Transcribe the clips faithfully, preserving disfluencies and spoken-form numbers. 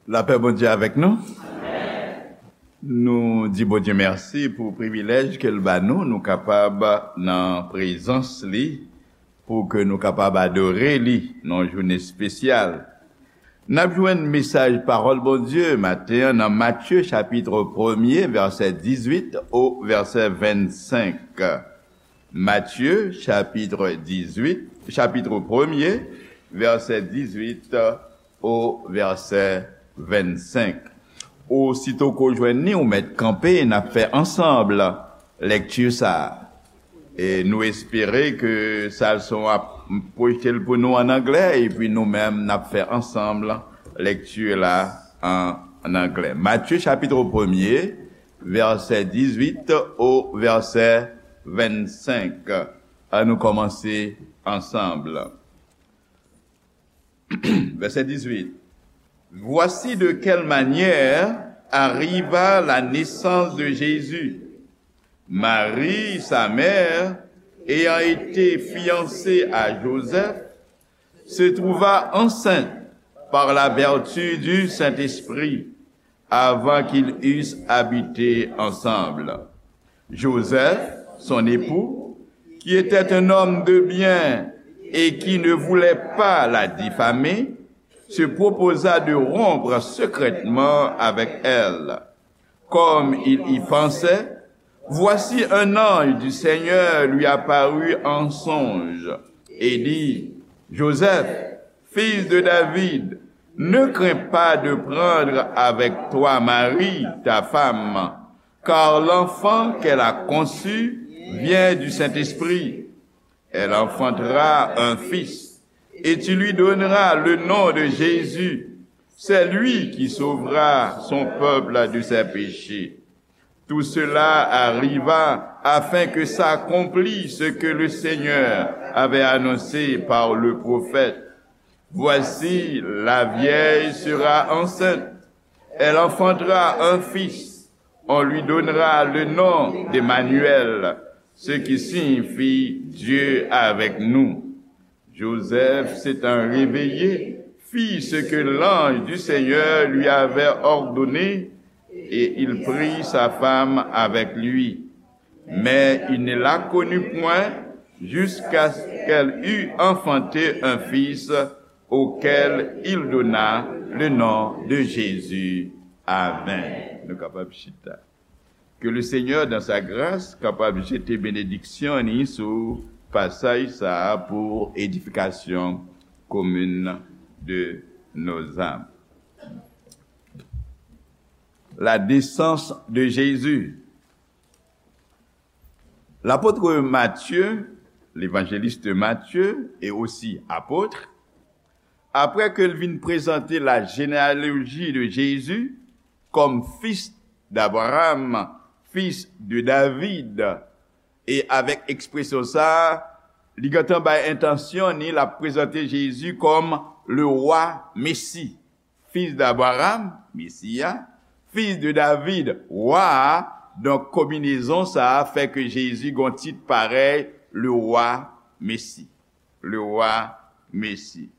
Lapè Bondye avèk nou. Nou di Bondye mèsi pou privilèj ke l ba nou, nou kapab nan prezans li, pou ke nou kapab adore li nan yon jounen espesyal. N ap jwenn mesaj pawòl Bondye maten an nan Matye chapit premye, vèsè dizuit o vèsè vennsenk. Matye chapit dizuit, chapit premye, vèsè dizuit o vèsè vennsenk. Osito ke w jwenn li, ou mèt kanpe, n ap fè ansanm lèkti sa a. E nou espere ke Salson ap pwojte l pou nou an anglè, epi nou menm n ap fè ansanm lèkti la an, an anglè. Matye chapit premye, vèsè dizuit o vèsè vennsenk. An nou kòmanse ansanm. Vèsè dizuit. Voici de quelle manière arriva la naissance de Jésus. Marie, sa mère, ayant été fiancée à Joseph, se trouva enceinte par la vertu du Saint-Esprit avant qu'ils eussent habité ensemble. Joseph, son époux, qui était un homme de bien et qui ne voulait pas la diffamer, se proposa de rompre secrètement avec elle. Comme il y pensait, voici un ange du Seigneur lui apparut en songe et dit, Joseph, fils de David, ne crains pas de prendre avec toi Marie, ta femme, car l'enfant qu'elle a conçu vient du Saint-Esprit. Elle enfantera un fils, et tu lui donneras le nom de Jésus. C'est lui qui sauvera son peuple de ses péchés. Tout cela arriva afin que s'accomplisse ce que le Seigneur avait annoncé par le prophète. Voici, la vierge sera enceinte. Elle enfantera un fils. On lui donnera le nom d'Emmanuel, ce qui signifie Dieu avec nous. Joseph, s'étant réveillé, fit ce que l'ange du Seigneur lui avait ordonné, et il prit sa femme avec lui. Mais il ne la connut point jusqu'à ce qu'elle eût enfanté un fils, auquel il donna le nom de Jésus. Amen. Nou kapab chita. Que le Seigneur, dans sa grâce, kapab jete benediksyon ni sou pasaj sa a pour édification commune de nos âmes. La naissance de Jésus. L'apôtre Matthieu, l'évangéliste Matthieu, et aussi apôtre, après que l vin présenté la généalogie de Jésus comme fils d'Abraham, fils de David, e avèk ekspresyon sa a, li gentan bay entansyon ni l ap prezante Jezi kòm le roi Messi. Fils d'Abraham, Mesi a, fils de David, wa a. Donk, konbinezon sa a fè ke Jezi gon tit parèy, le roi Messi. Le roi Messi.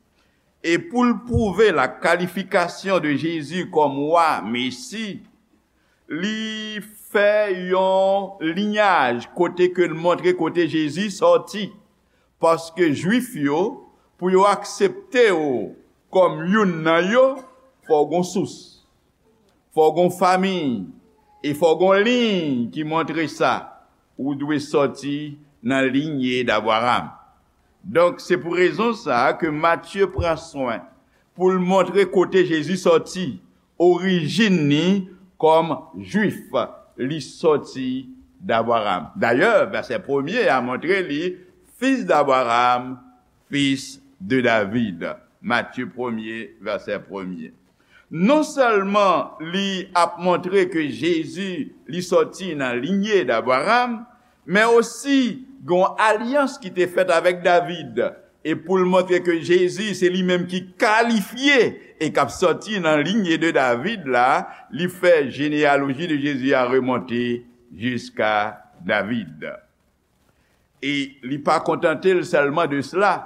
E pou l pwouve la kalifikasyon de Jezi kòm wa Mesi, li fè yon linyaj kote ke l montre kote Jezi sòti. Paske Jwif yo, pou yo aksepte w kòm youn nan yo, fò w gon sous, fò w gon fanmi, e fò w gon liy ki montre sa. Ou dwe sòti nan linye d'Abraham. Donk, se pou rezon sa a ke Matye pran swen pou l montre kote Jezi sòti, orijin ni kòm Jwif, li sòti d'Abraham. Dayè, vèsè premye a montre li, fils d'Abraham, fils de David. Matye premye, vèsè premye. Non sèlman li ap montre ke Jezi, li sòti nan linye d'Abraham, men osi gen yon alyans ki te fèt avèk David. E pou l montre ke Jezi, se li menm ki kalifye e k ap sòti nan linye de David la, li fè jeneyaloji de Jezi a remonte jiska David. E li pa kontante l sèlman de sela,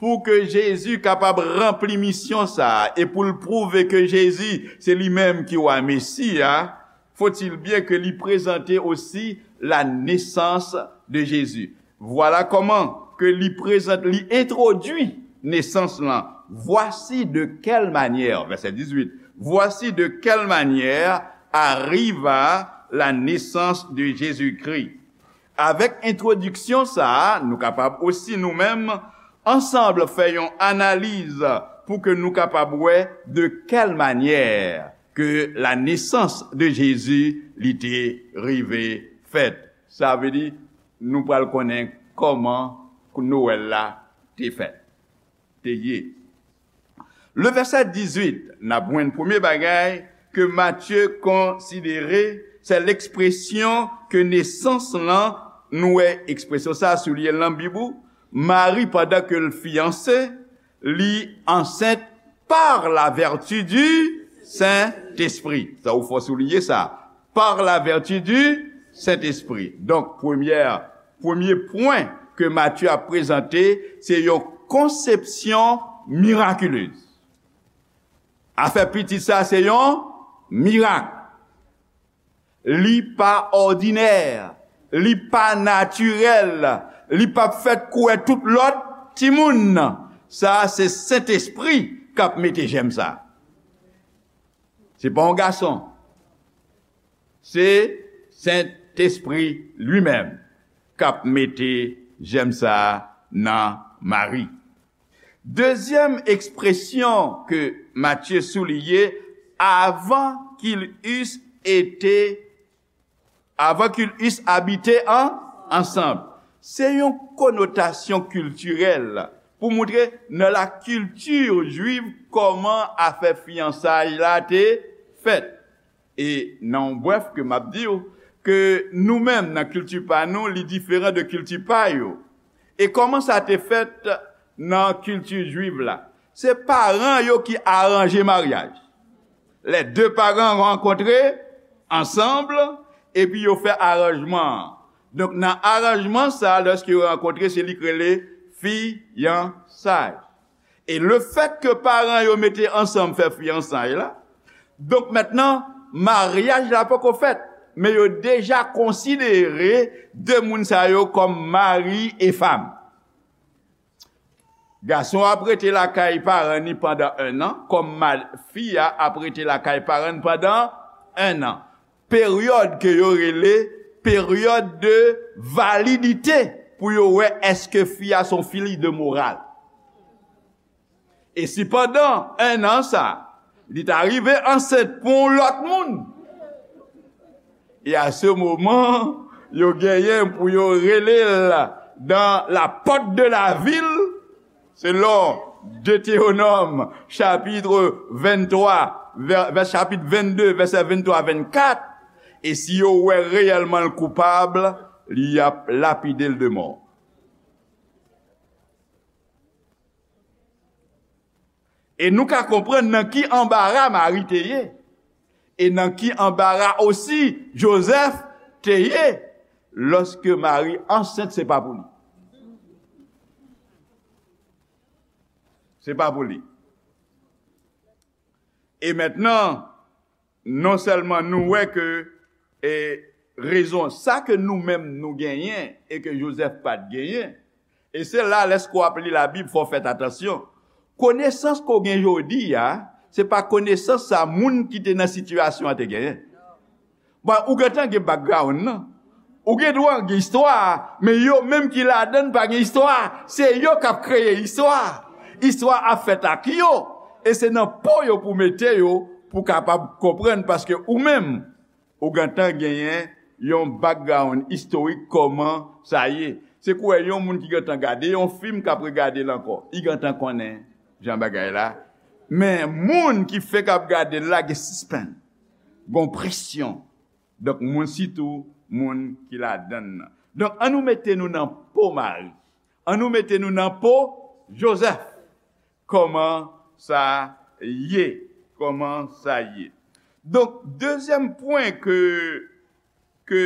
Pou ke Jezi kapab ranpli misyon sa a, e pou l pwouve ke Jezi se li menm ki wa Mesi a, faut-il bien ke li prezante osi la nesans de Jezi. Vwala kòman ke li prezante, li entwodui nesans lan. Voici de quelle manière, vèsè dizuit, voici de quelle manière arriva la naissance de Jésus-Christ. Avèk entwodiksyon sa a, nou kapab osi nou menm ansanm fè yon analiz pou ke nou kapab wè de kèl manyè ke la nesans de Jezi li te rive fèt. Sa vle di, nou pral konnen kòman Nwèl la te fèt, te ye. Le vèsè dizuit, n ap jwenn premye bagay ke Matye konsidere, se lekspresyon ke nesans lan, nou wè ekspresyon sa a souliye nan Bib ou, Mari, pandan ke l fiyanse, li ansent par la vertu du Saint-Esprit. Sa ou fò souliye sa. Par la vertu du Saint-Esprit. Donk, premyè, premye pwen ke Matye ap prezante, se yon konsepsyon mirakilez. Afè pitit sa, se yon mirak. Li pa òdinè, li pa natirèl, li p ap fèt kouwè tout lòt timoun. Sa a se Sentespri k ap mete jèm sa a. Se pa yon gason. Se Sentespri li menm k ap mete jèm sa a nan Mari. Dezyèm ekspresyon ke Matye souliye, avant qu'ils eussent été, avant qu'ils eussent habité en, ensemble. Se yon konotasyon kiltirèl pou montre nan la kilti jwiv kòman afè fiyansay la te fèt. E nan yon brèf ke m ap di w, ke nou menm nan kilti pa nou, li diferan de kilti pa yo. E kòman sa te fèt nan kilti jwiv la? Se paran yo ki aranje maryaj. Les deux parents rencontrés ensemble, epi yo fè aranjman an. Donk, nan aranjman sa, lèske yo rankontre, se li k rele fiyansay. E lefètke paran yo mete ansanm fè fiyansay la, donk mentnan, maryaj la poko fèt, men yo deja konsidere de moun sa yo kòm mari e fanm. Gason ap rete lakay paran ni pandan en an, kòm ma-, fi a ap rete lakay paran ni pandan en an. Peryòd ke yo rele peryòd de validite pou yo wè èske fi a se yon fi de moral. E si pandan en an sa, li ta rive ansent pou yon lòt moun, e a se moman, yo genyen pou yo rele l dans la porte de la ville, selon Detewonòm, chapit venntwa, vè, vè, chapit vennde, vèsè venntwa, vennkat, e si yo wè reyèlman l koupab, y ap lapide l de mò. E nou ka konprann nan ki anbara Mari te ye, e nan ki anbara osi Jozèf te ye, lòske Mari ansent, se pa pou li. Se pa pou li. E mentnan, non sèlman nou wè ke, e, rezon sa ke nou menm nou genyen e ke Jozèf pa t genyen, e se la, lèske w ap li Labib, fò w fè atansyon. Konesans ke w gen jodi a, se pa konesans sa moun ki te nan sitiyasyon an te genyen. Bon, ou gentan gen background nan. Ou gen dwa gen istwa a, men yo menm ki ladan l pa gen istwa a. Se yo k ap kreye istwa a. Istwa a ap fèt ak yo. E se nan po yo pou mete yo, pou kapab konprann, paske ou menm, ou gentan genyen yon background istorik kòman sa ye. Se kwè yon moun ki gentan gade yon fim k ap regade l ankò. Li gentan konnen jan bagay la. Men moun ki fenk ap gade l la gen sispann. Gon presyon. Donk, moun, sitou moun ki ladan l nan. Donk, ann nou mete nou nan po Mari. Ann nou mete nou nan po Jozèf. Kòman sa ye? Kòman sa ye? Donk, dezyèm pwen ke, ke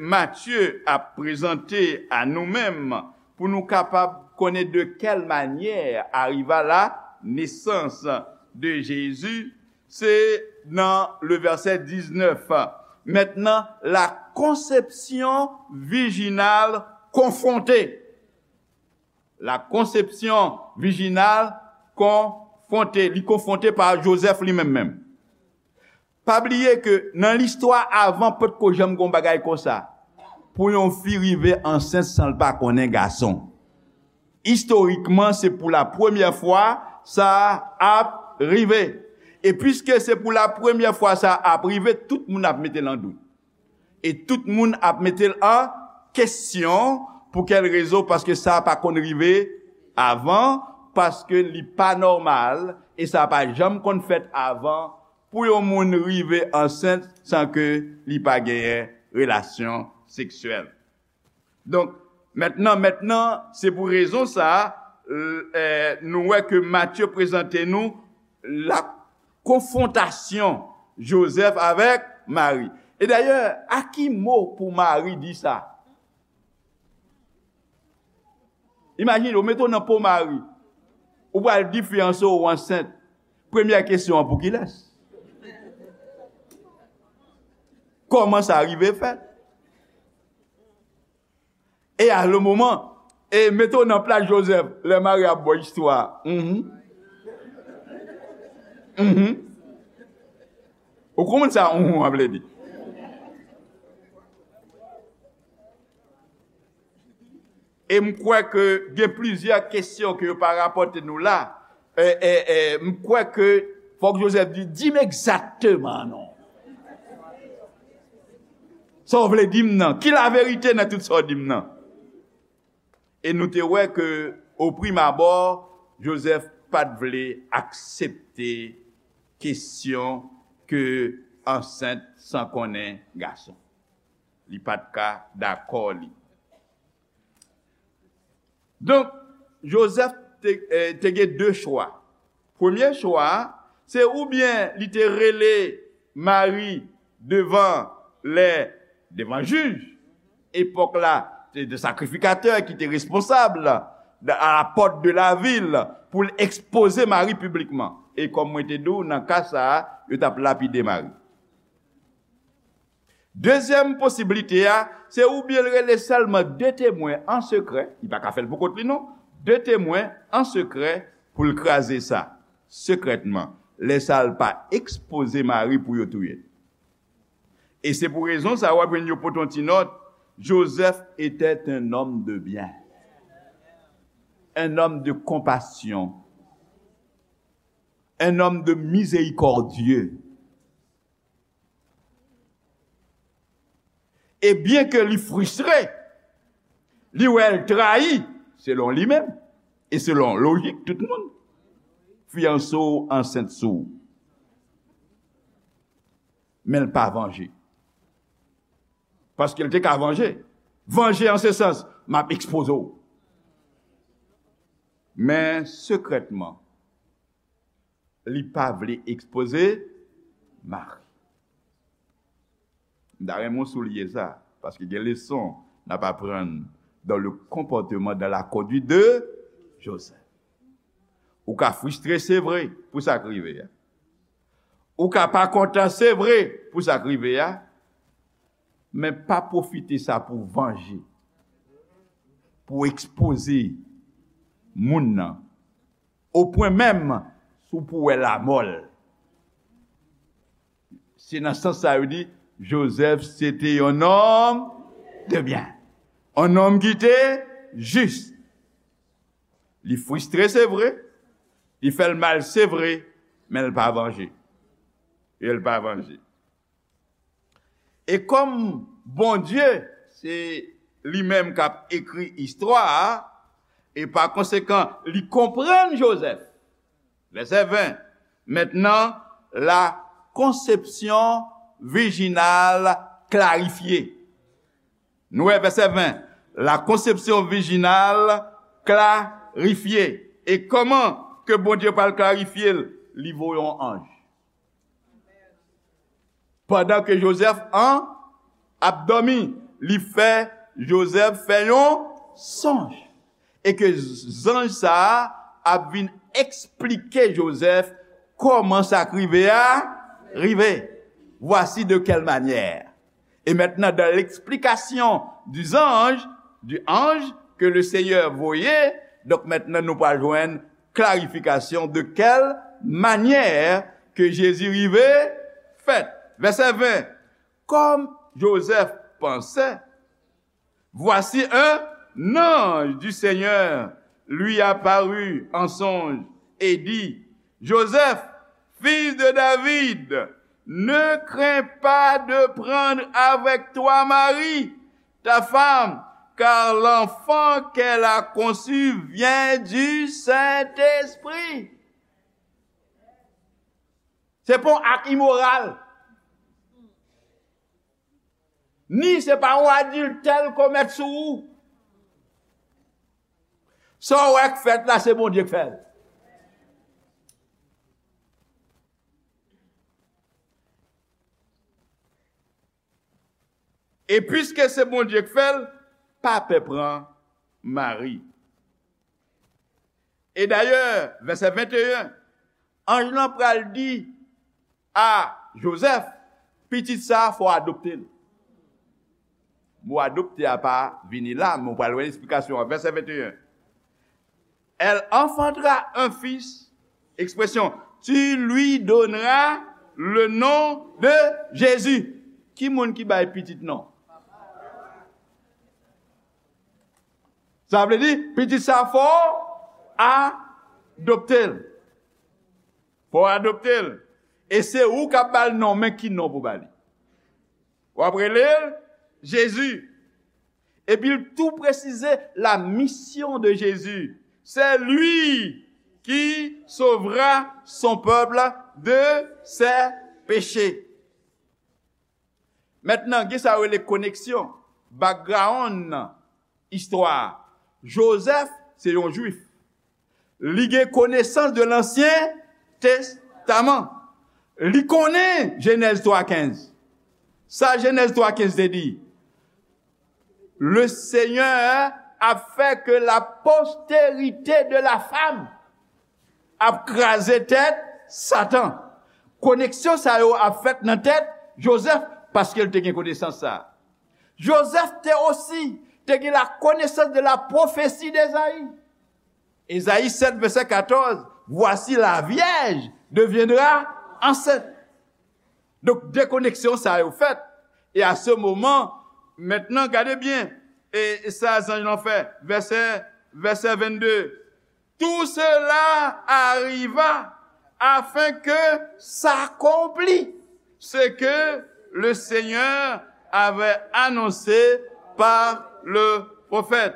Matye ap prezante a nou menm pou nou kapab connaît de quelle manière arriva la naissance de Jésus, c'est dans le verset dix-neuf. Maintenant, la conception virginale confrontée. La conception virginale confrontée. Li konfwonte pa Jozèf li menm menm. Pa bliye ke nan listwa avan potko janm gon bagay konsa. Pou yon fi rive ansent san l pa konnen gason. Istorikman, se pou la premyè fwa sa ap rive. E piske se pou la premyè fwa sa ap rive, tout moun ap mete l an dout. E tout moun ap mete l an kesyon. Pou kèl rezon? Paske sa pa konn rive avan, paske li pa nòmal, e sa pa janm konn fèt avan pou yon moun rive ansent san ke li pa genyen relasyon seksyèl. Donk, mentnan, mentnan, se pou rezon sa a, l-, eh, nou wè ke Matye prezante nou la konfwontasyon Jozèf avèk Mari. E dayè, a ki mo pou Mari di sa? Imajine w, mete w nan po Mari. Ou pral di fiyanse w ansent. Premyè kesyon an, pou kilès? Kòman sa rive fèt? E a le moman, e mete w nan plas Jozèf, lè Mari ap ba w istwa a. Mhm. Mhm. Ou konprann sa, mhm, an vle di? E m kwè ke gen plizyè kesyon ke yo pa rapòte nou la. E, e, e, m kwè ke fòk Jozèf di, di m egzakteman non. Sa w vle di m nan? Ki laverite nan tout sa w di m nan? E nou te wè ke, o prim abò, Jozèf pa t vle aksepte kesyon ke ansent san konnen gason. Li pa t ka dakò li. Donk, Jozèf te, eh, te gen de chwa. Premye chwa a, se oubyen li te rele Mari devan lè, devan jij. Epòk la, se de sakrifikatè ki te responsab de, à la porte de la ville pou l ekspoze Mari piblikman. E kòm mwen te di w, nan ka sa a, yo t ap lapide Mari. Dezyèm posiblite a, se oubyen l rele sèlman de temwen an sekrè, li pa ka fè l pou kont li non, de temwen an sekrè pou l kraze sa, sekrètman. Lè sa a, l pa ekspoze Mari pou yo touye l. E se pou rezon sa a, w ap jwenn yo pote yon ti nòt, Joseph était un homme de bien, un homme de compassion, un homme de miséricordieux. E byen ke li fristre, li wè l trayi, selon li menm, e selon lojik tout moun, fiyanse w ansent sou w. Men l pa vanje. Paske l te ka vanje. Vanje an se sans, m ap ekspoze w. Men sekrètman, li pa vle ekspoze Mari. M ta renmen w souliye sa, paske gen leson n ap aprann dans le comportement, dans la conduite de Joseph. Ou ka fristre, se vre, pou sa k rive a. Ou ka pa kontan, se vre, pou sa k rive a. Men pa pwofite sa pou vanje, pou ekspoze moun nan, o pwen menm si w pou wè lamò l. Se nan sans sa yo di, Joseph se te yon nonm de byen, yon nonm ki te jis. Li fristre, se vre, li fè l mal, se vre, men l pa vanje. E l pa vanje. E kòm Bondye, se li menm k ap ekri istwa a, e pa konsekan, li konprann Joseph. Vèsè ven. Maintenant, la conception virginale clarifiée. Nou wè vèsè ven. La conception virginale clarifiée. E kòman ke Bondye pral klarifye l? Li voye yon anj. Pandan ke Joseph an ap dòmi, li fè Joseph fè yon sonj. e ke zanj sa a ap vin eksplike Jozèf kòman sa k rive a rive. Voici de quelle manière. Et maintenant, dans l'explication du ange, du ange que le Seigneur voyait, donk mentnan nou pral jwenn klarifikasyon de kèl manyè ke Jezi rive fèt. Vèsè ven, comme Joseph pensait, voici un ange du Seigneur lui apparut en songe et dit, Joseph, fils de David, ne crains pas de prendre avec toi Marie, ta femme, car l'enfant qu'elle a conçu vient du Saint-Esprit. Se pa yon ak imoral. Ni se pa yon adiltè l komèt sou ou. Sa w wè k fèt la, se Bondye k fè l. E piske se Bondye k fè l, pa pè pran Mari. E dayè, vèsè venteyen, anj lan pral di a Jozèf, pitit sa a, fò w adopte l. Mo adopte a pa vini la, men w pral wè esplikasyon an. Vèsè venteyen. Elle enfantera un fils, ekspresyon, tu lui donneras le nom de Jésus. Ki moun ki bay pitit non? Sa vle di, pitit sa fò adopte l. Fò adopte l. E se ou k ap ba l non, men ki non pou ba li? W ap rele l Jezi. Epi l tou presize la mission de Jésus. C'est lui qui sauvera son peuple de ses péchés. Mentnan, gen sa yo rele koneksyon, background nan istwa a. Jozèf se yon Jwif. Li gen konesans de Lansyen Testaman. Li konnen Jenèz twa kenz. Sa Jenèz twa kenz te di? Le Seigneur a fait que la postérité de la femme ap kraze tèt Satan. Koneksyon sa yo ap fèt nan tèt Jozèf paske l te gen konesans sa a. Jozèf te osi te gen la connaissance de la prophétie d'Ésaïe. Ezayi sèt, vèsè katòz, voici la vierge deviendra enceinte. Donk, dekoneksyon sa yo fèt. E a se moman, mentnan, gade byen, e, e sa zanj lan fè, vèsè, vèsè vennde. Tout cela arriva afin que s'accomplisse ce que le Seigneur avait annoncé par le prophète.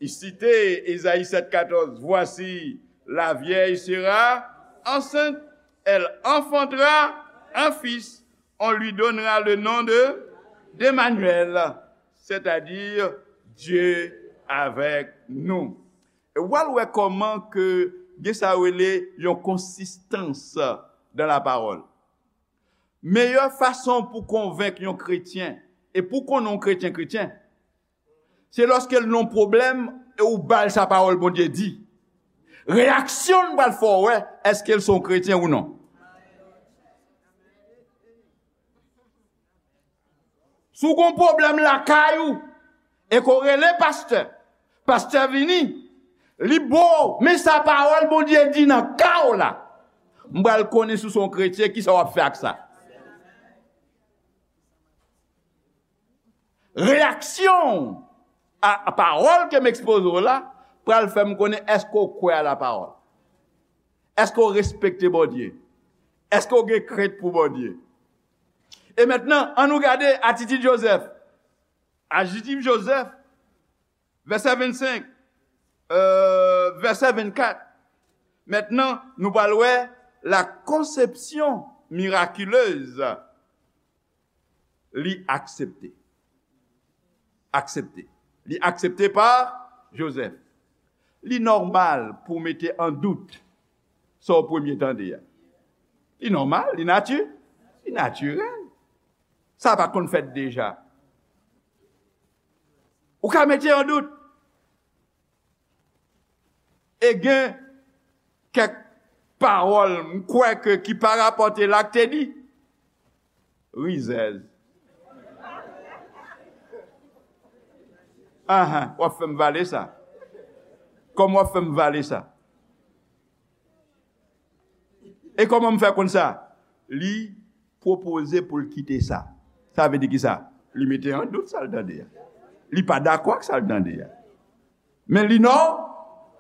Il citait Ésaïe sept quatorze, voici, la vierge sera enceinte, elle enfantera un fils, on lui donnera le nom de d'Emmanuel, c'est-à-dire Dieu avec nous. E w al wè kòman ke gen sa yo rele yon konsistans dan la pawòl. Meyè fason pou konvenk yon kretyen, e pou konnen yon kretyen kretyen, se lòske l nan yon pwoblèm e ou ba l sa pawòl Bondye di. Reyaksyon l pral fè w wè èske l se yon kretyen ou non. Si w gen yon pwoblèm lakay ou, e ke w rele pastè, pastè vini, li ba w, men sa pawòl Bondye di nan ka w la. M pral konnen si w se yon kretyen, kisa w ap fè ak sa. Reyaksyon a, a pawòl ke m ekspoze w la pral fè m konnen èske w kwè a la pawòl. Èske w respekte Bondye? Èske w gen krent pou Bondye? E mentnan, ann nou gade atitid Jozèf. Atitid Jozèf, vèsè vennsenk, euh, vèsè vennkat. Mentnan, nou pral wè la conception miraculeuse. Li aksepte. Aksepte. Li aksepte pa Jozèf. Li nòmal pou w mete an dout sa w premye tande a. Li nòmal, li nati-, li natirèl. Sa pa t konn fèt deja. Ou ka mete an dout. E gen kèk pawòl, m kwè ke ki pa rapòte la k te di. Rizèz. Ahan, w ap fè m vale sa. Kòman w ap fè m vale sa? E kòman m fè konn sa? Li pwopoze pou l kite sa. Sa vle di ki sa? Li mete an dout sa l tande a. Li pa dakò ak sa l tande a. Men li nò,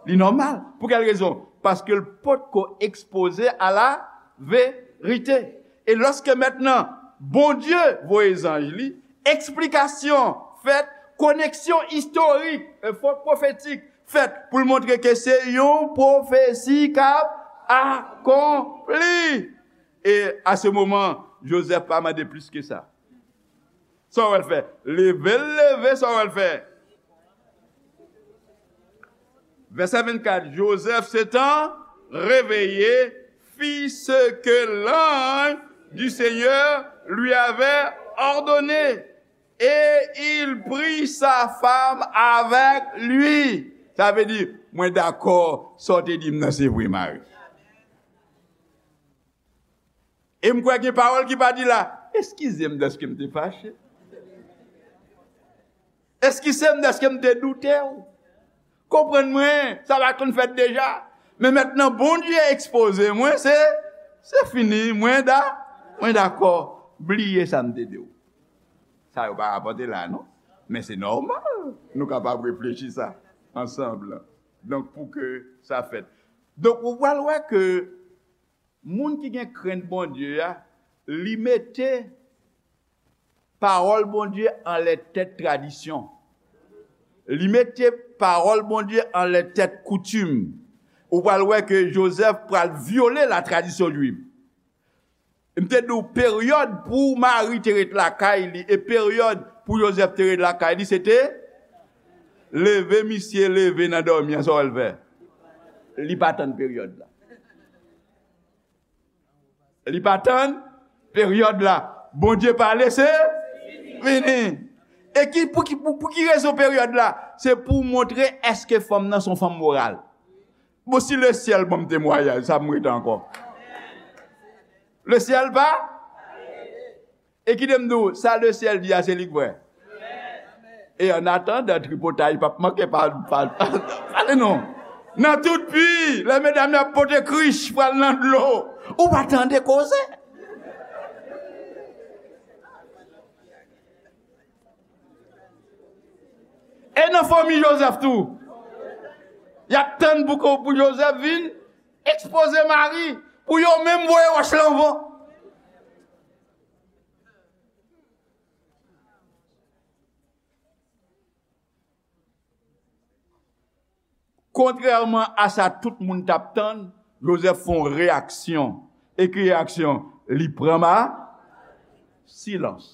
li nòmal. Pou kèl rezon? Paske l potko ekspoze a la verite. E lòske mentnan Bondye voye zanj li, eksplikasyon fèt, koneksyon istorik, e fòk pwofetik fèt pou l montre ke se yon pwofesi k ap akonpli. E a se moman, Jozèf pa mande plis ke sa. Sa w wè l fè? Leve l leve, sa w wè l fè? Vèsè vennkat, Joseph s'étant réveillé, fit ce que l'ange du Seigneur lui avait ordonné, et il prit sa femme avec lui. Sa vle di, mwen dakò, sa w te di m nan se vre, Mari. E m kwè gen pawòl ki pa di la, eskize m dèske m te fache. Eskize m dèske m te doute w. Konprann mwen, sa pa konn fèt deja. Men mentnan Bondye ekspoze mwen, se, se fini, mwen da, mwen dakò. Bliye sa m te di w. Sa yo pa rapòte la, non. Men se nòmal. Nou kapab reflechi sa ansanm. Donk, pou ke sa fèt. Donk, ou pral wè ke moun ki gen krent Bondye a, li mete pawòl Bondye anlè tèt tradisyon. Li mete pawòl Bondye anlè tèt koutim. Ou pral wè ke Jozèf pral vyole la tradisyon jwif. M te di w peryòd pou Mari te ret lakay li e peryòd pou Jozèf te ret lakay li, se te leve misye leve nan dòmi an, sa w wè l fè? Li pa tann peryòd la. Li pa tann peryòd la. Bondye pale, se fini. E ki, pou ki, pou, pou ki rezon peryòd la? Se pou montre èske fanm nan se yon fanm moral. Bon, si lesyèl ban m temwayaj, sa m rete ankò. Lesyèl pa? E kite m di w, sa lesyèl di a, se li k vrè. E an atandan, tripotay p ap manke pa, pa, pale non. Nan tout pi, lè medam yo ap pote krich pral nan dlo, ou pa tande koze. E nan fanmi Jozèf tou, y ap tann pou, pou Jozèf vin ekspoze Mari, pou yo menm voye wòch lan van. Kontrèman a sa tout moun t ap tann, Jozèf fè yon reyaksyon. E ki reyaksyon? Li pran ma silans.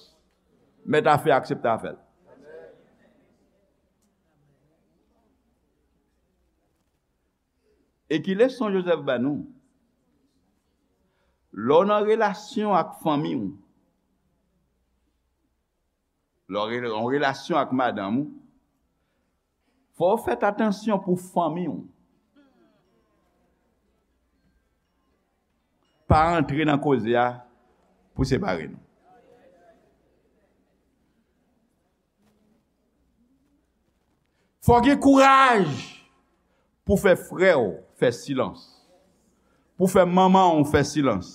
Mèt afè aksepte afè l. E ki leson Jozèf ba nou? Lè w nan relasyon ak fanmi w, lè w re-, yon relasyon ak madanm ou, fò w fè atansyon pou fanmi w. Pa antre nan koze a pou separe nou. Fò gen kouraj pou fè frè w fè silans. Pou fè manman w fè silans.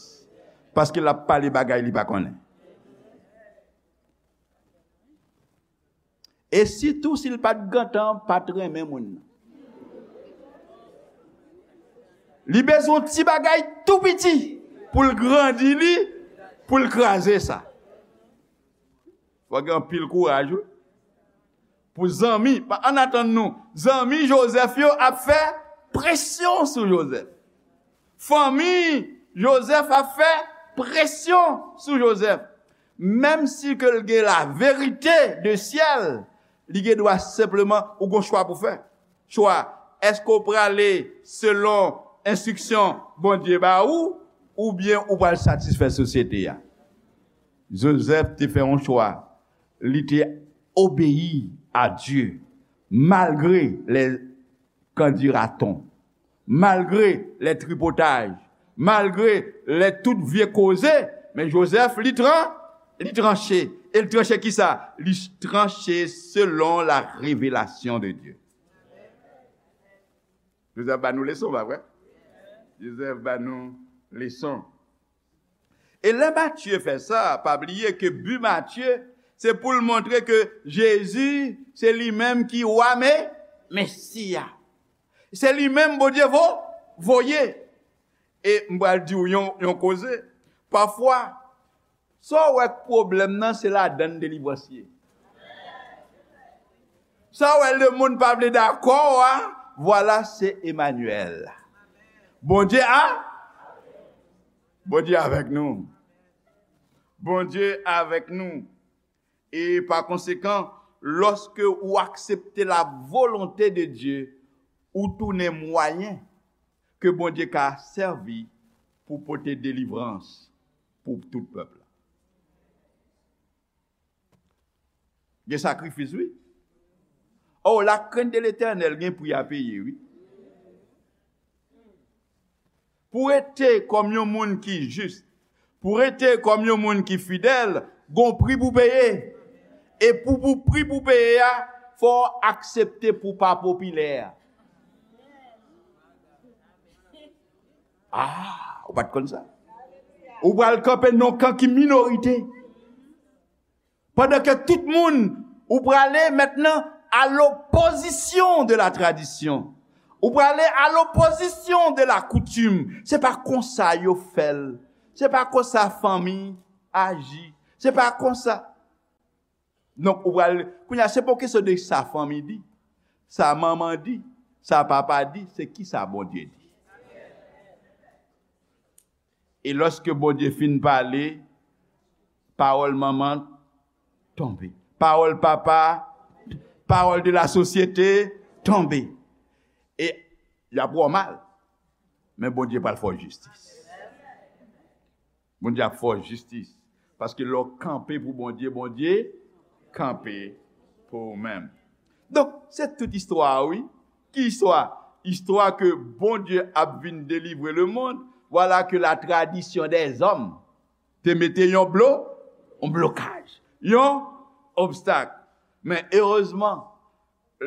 Paske l ap pale bagay li pa konnen. E sitou si l pa t gentan pa t renmen moun nan. Li bezwen yon ti bagay tou piti pou l grandi li, pou l kraze sa. Fò gen anpil kouraj, wi. Pou zanmi, pa, ann atann nou, zanmi Jozèf yo ap fè presyon sou Jozèf. Fanmi Jozèf ap fè presyon sou Jozèf. Menm si ke l gen la verite de syèl, li gen dwa senpleman, ou gon chwa pou fè. Chwa, èske w prale selon enstriksyon Bondye ba ou, oubyen ou pral satisfè sosyete a? Jozèf te fè yon chwa. Li te obeyi a Dye, malgre les qu'en dira-t-on. Malgre lè tripotaj, malgre lè tout vye koze, men Jozèf, li tran, li tranche. E li tranche kisa? Li tranche selon la revelasyon de Dye. Jozèf ba nou leson, pa vre? Jozèf ba nou leson. E lè Matye fè sa, pa bliye ke bi Matye, se pou l montre ke Jezi, se li menm ki wa, men Mesi a. Se li menm Bondye vo, voye. E m pral di w yon, yon koze. Pafwa, sa w wè k pwoblèm nan, se ladann delivrans ye. Sa w wè lemonn pa vle dakò a, vwala se Emanyèl. Bondye a, Bondye avèk nou. Bondye avèk nou. E pa konsekan, lòske ou aksepte la volonte de Dye, ou tounen mwayen ke Bondye ka sèvi pou pote delivrans pou tout pèp la. Gen sakrifis, wi. Oh, la crainte de l'Éternel gen pri a peye, wi. Pou rete kòm yon moun ki jis, pou rete kòm yon moun ki fidèl, gon pri pou peye. E pou, pou pri pou peye a, fò w aksepte pou pa popilè. Ah, ou pa t konn sa? Ou pral kanpe nan kan ki minorite. Pandan ke tout moun, ou prale mentnan à l'opposition de la tradition. Ou prale à l'opposition de la coutume. Se pa konsa yo fè l. Se pa konsa fanmi aji. Se pa konsa. Donk, ou pral, kounye a, se pa yon kesyon de sa fanmi di, sa manman di, sa papa di, se kisa Bondye di. E lòske Bondye fin pale, pawòl manman tonbe. Pawòl papa, pawòl de la sosyete tonbe. E y ap wè w mal. Men Bondye pral fè w jistis. Bondye ap fè w jistis. Paske lè w kanpe pou Bondye, Bondye kanpe pou ou menm. Donk, se tout istwa a, wi. Ki istwa? Istwa ke Bondye ap vin delivre lemonn. Vwala ke la tradition des hommes te mete yon blo, yon blokaj, yon obstak. Men erezman,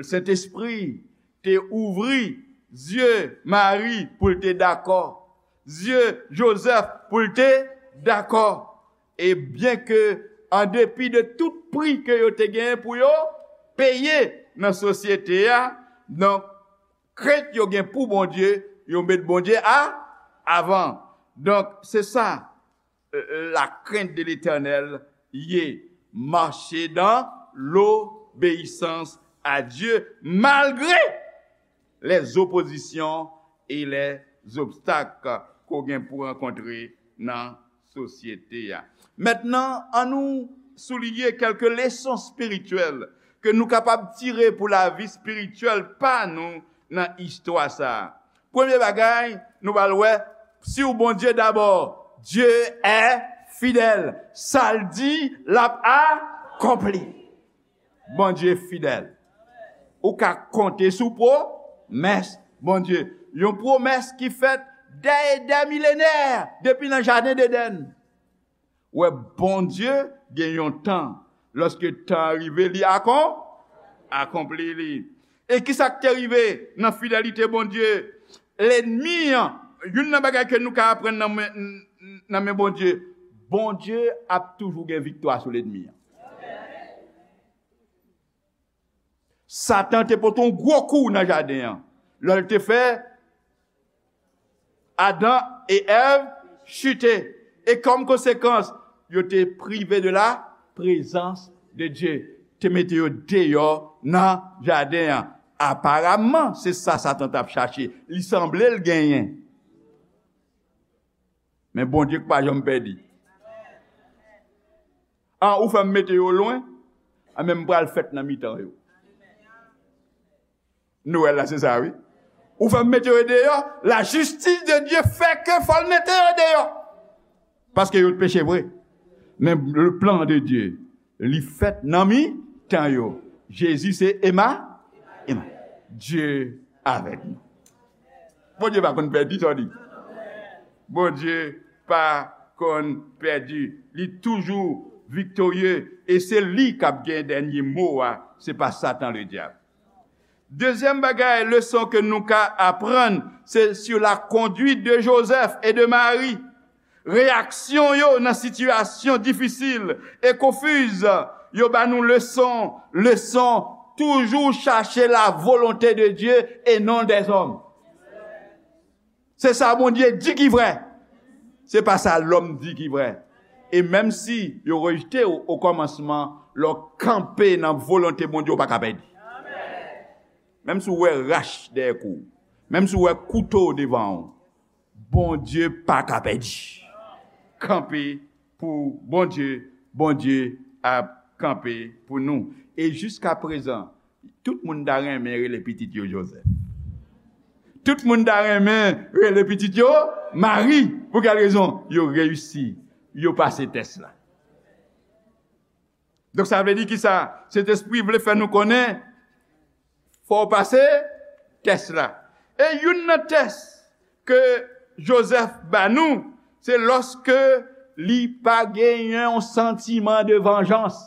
Sentespri te ouvri zye Mari pou l te dakò, zye Jozèf pou l te dakò. E byenke, an depi de tout pri ke yo te genyen pou yo peye nan sosyete a, donk, krent yo gen pou Bondye, yo met Bondye a, avan. Donk, se sa, euh, la crainte de l'Éternel ye, marcher dans l'obéissance à Dieu malgré les oppositions et les obstacles ke w gen pou rankontre nan sosyete a. Mentnan, annou souliye kèlke leson espirityèl ke nou kapab tire pou lavi espirityèl pa nou nan istwa sa a. Premye bagay, nou pral wè, sur Bondye dabò. Dieu est fidèle. Sa l di, l ap akonpli. Bondye fidèl. Ou ka konte sou pwomès Bondye. Yon pwomès ki fèt dè e dè milenè, depi nan jaden Edenn. Wè, Bondye gen yon tan. Lòske tan an rive, li akon-, akonpli li. E ki sa k te rive nan fidelite Bondye? Lènmi an, youn nan bagay ke nou ka aprann nan men, nan men Bondye, Bondye ap toujou gen viktwa sou lènmi an. Satan te pote yon gwo kou nan jaden an. Lè l te fè Adan e Èv chite. E kòm konsekans, yo te prive de la prezans de Dye. Te mete yo deyò nan jaden an. Aparamman, se sa Satan t ap chache. Li sanble l genyen. Men Bondye k pa janm pèdi. An, ou fè m mete yo lwen, an, men m pral fèt nan mitan yo. Nwèl la, se sa, wi. Ou fè m mete yo deyò, la justice de Dieu fè ke fò l mete yo deyò. Paske yo t peche vre. Men le plan de Dieu, li fèt nan mitan yo. Jezi se Ema, Ema. Dieu avec nous. Bondye pa konn pèdi, sa w di. Bondye pa konn pèdi. Li toujou viktorye. E se li k ap gen dènye mo a. Se pa Satan ledyab. Dezyèm bagay, leson ke nou ka aprann, se sur la conduite de Joseph et de Marie. Reyaksyon yo nan sitiyasyon difisil e konfiz yo ba nou leson, leson, toujou chache la volonte de Dye e non dèzòm. Se sa Bondye di ki vrè. Se pa sa lòm di ki vrè. E menm si yo rejte w o kòmansman, lè w kanpe nan volonte Bondye, w pa ka pèdi. Menm si w wè rach dèyè kou w, menm si w wè kouto devan w, Bondye pa ka pèdi. Kanpe pou Bondye, Bondye ap kanpe pou nou. E jiska prezan, tout moun ta renmen rele pitit yo Joseph. Tout moun ta renmen rele pitit yo Marie. Pou kèl rezon? Yo reyisi. Yo pase tès la. Donk, sa vle di ki sa? Sentespri vle fè nou konnen, fò w pase tès la. E youn nan tès ke Joseph ba nou, se lòske li pa genyen yon santiman de vanjans.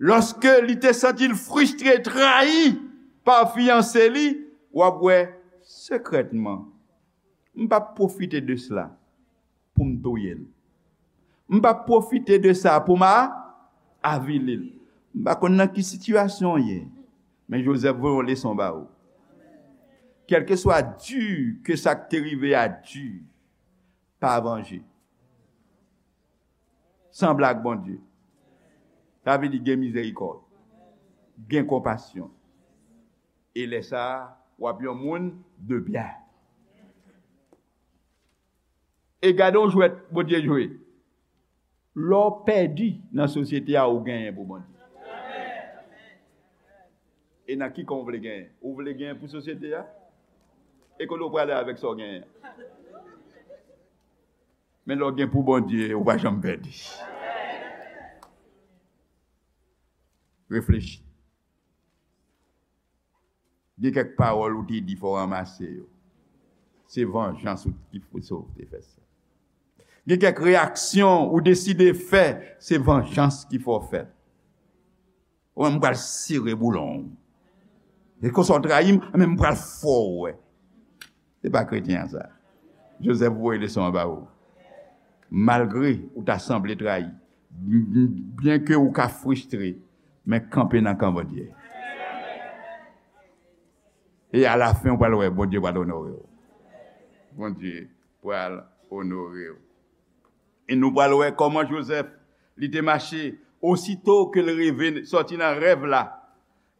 Lòske li te santi l fristre, trayi pa fiyanse li, w ap wè sekrètman, m p ap pwofite de sla pou m touye l. M p ap pwofite de sa pou m a-, avili l. M pa konn nan ki sitiyasyon w ye, men Joseph voye yon leson ba ou. Kèlkeswa di ke sa k te rive a di, pa vanje. Sanble ak Bondye. Sa vle di gen mizerikòd, gen konpasyon. E lè sa a, w ap yon moun de byen. E gade yon jwèt Bondye jwe. Lè w pèdi nan sosyete a, ou genyen pou Bondye. E nan ki kan w vle genyen? Ou vle genyen pou sosyete a? E kote w prale avèk sa w genyen an? Men lè w gen pou Bondye, ou pa janm pèdi. Reflechi. Gen kèk pawòl ou te di, fò w ranmase yo. Se vanjans ou ki fè sa w te fè sa. Gen kèk reyaksyon ou deside fè, se vanjans ki fè w fè l. Ou menm, m pral sere boulon w. E konsa w trayi m, men m pral fè w wè. Se pa kretyen an sa. Joseph voye leson an ba ou. Malgre ou ta sanble trayi, byenke ou ka fristre, men kanpe nan kan Bondye. E alafen, ou pral wè, Bondye pral onore w. Bondye pral onore w. E nou pral wè kòman Joseph, li te mache, osito ke l reve, sòti nan rèv la,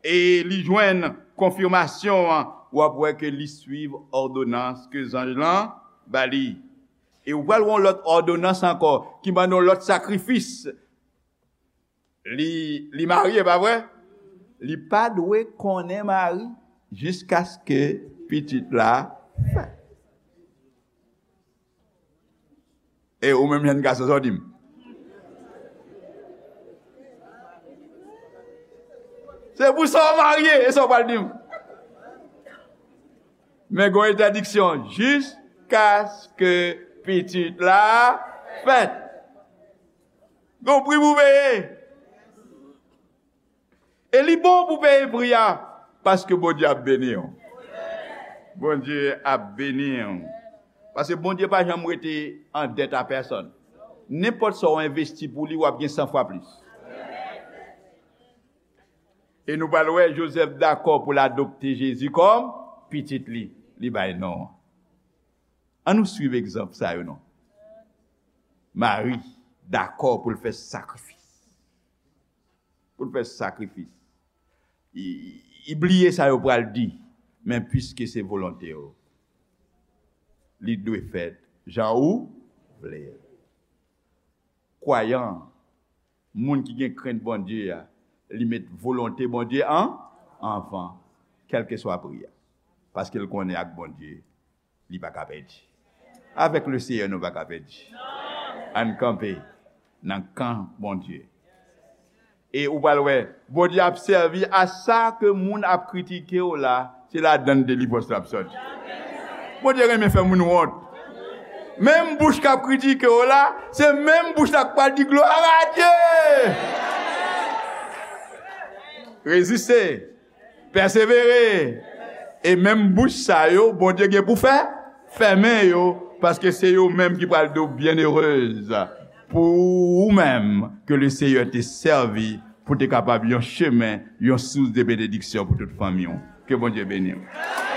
e li jwenn konfimasyon an, w ap wè ke li swiv òdonans ke zanj lan ba li. E ou pral wè yon lòt òdonans ankò, ki mande yon lòt sakrifis. Li, li marye, pa vre? Li pa dwe konnen mari jiskaske pitit la fèt. E ou menm jèn gason, sa w di m? Se pou sa w marye, e sa w pral di m? Men gen yon entèdiksyon, jiskaske pitit la fèt. Gen yon pri pou peye. E li bon pou peye pri a, paske Bondye ap beni w. Bondye ap beni w. Paske Bondye pa janm rete an dèt a pèsonn. Nenpòt sa w envesti pou li, w ap gen san fwa plis. E nou pral wè Jozèf dakò pou l adopte Jezi kòm pitit li. Li bay non an. An nou swiv egzanp sa yo non. Mari dakò pou l fè sakrifis. Pou l fè sakrifis. Li, li bliye sa yo pral di, men piske se volonte w, li dwe fèt jan ou vle l. Kwayan, moun ki gen krent Bondye a, li met volonte Bondye an anvan, kèlkeswa pri a. Paske l konnen ak Bondye, li pa ka pèdi. Avèk le Seyè, nou pa ka pèdi. Ann kanpe nan kan Bondye. E ou pral wè, Bondye ap sèvi a sa ke moun ap kritike w la, se ladan l delivrans la ap sòti. Bondye renmen fè moun wont. Menm bouch k ap kritike w la, se menm bouch la k pral di glwa a Dye. Reziste, pèsevere. E menm bouch sa yo, Bondye gen pou fè, fèmen yo, paske se yo menm ki pral di w byennerez pou ou menm ke le Seyè te sèvi pou te kapab yon chemen, yon sous de benediksyon pou tout fanmi w. Ke Bondye beni w.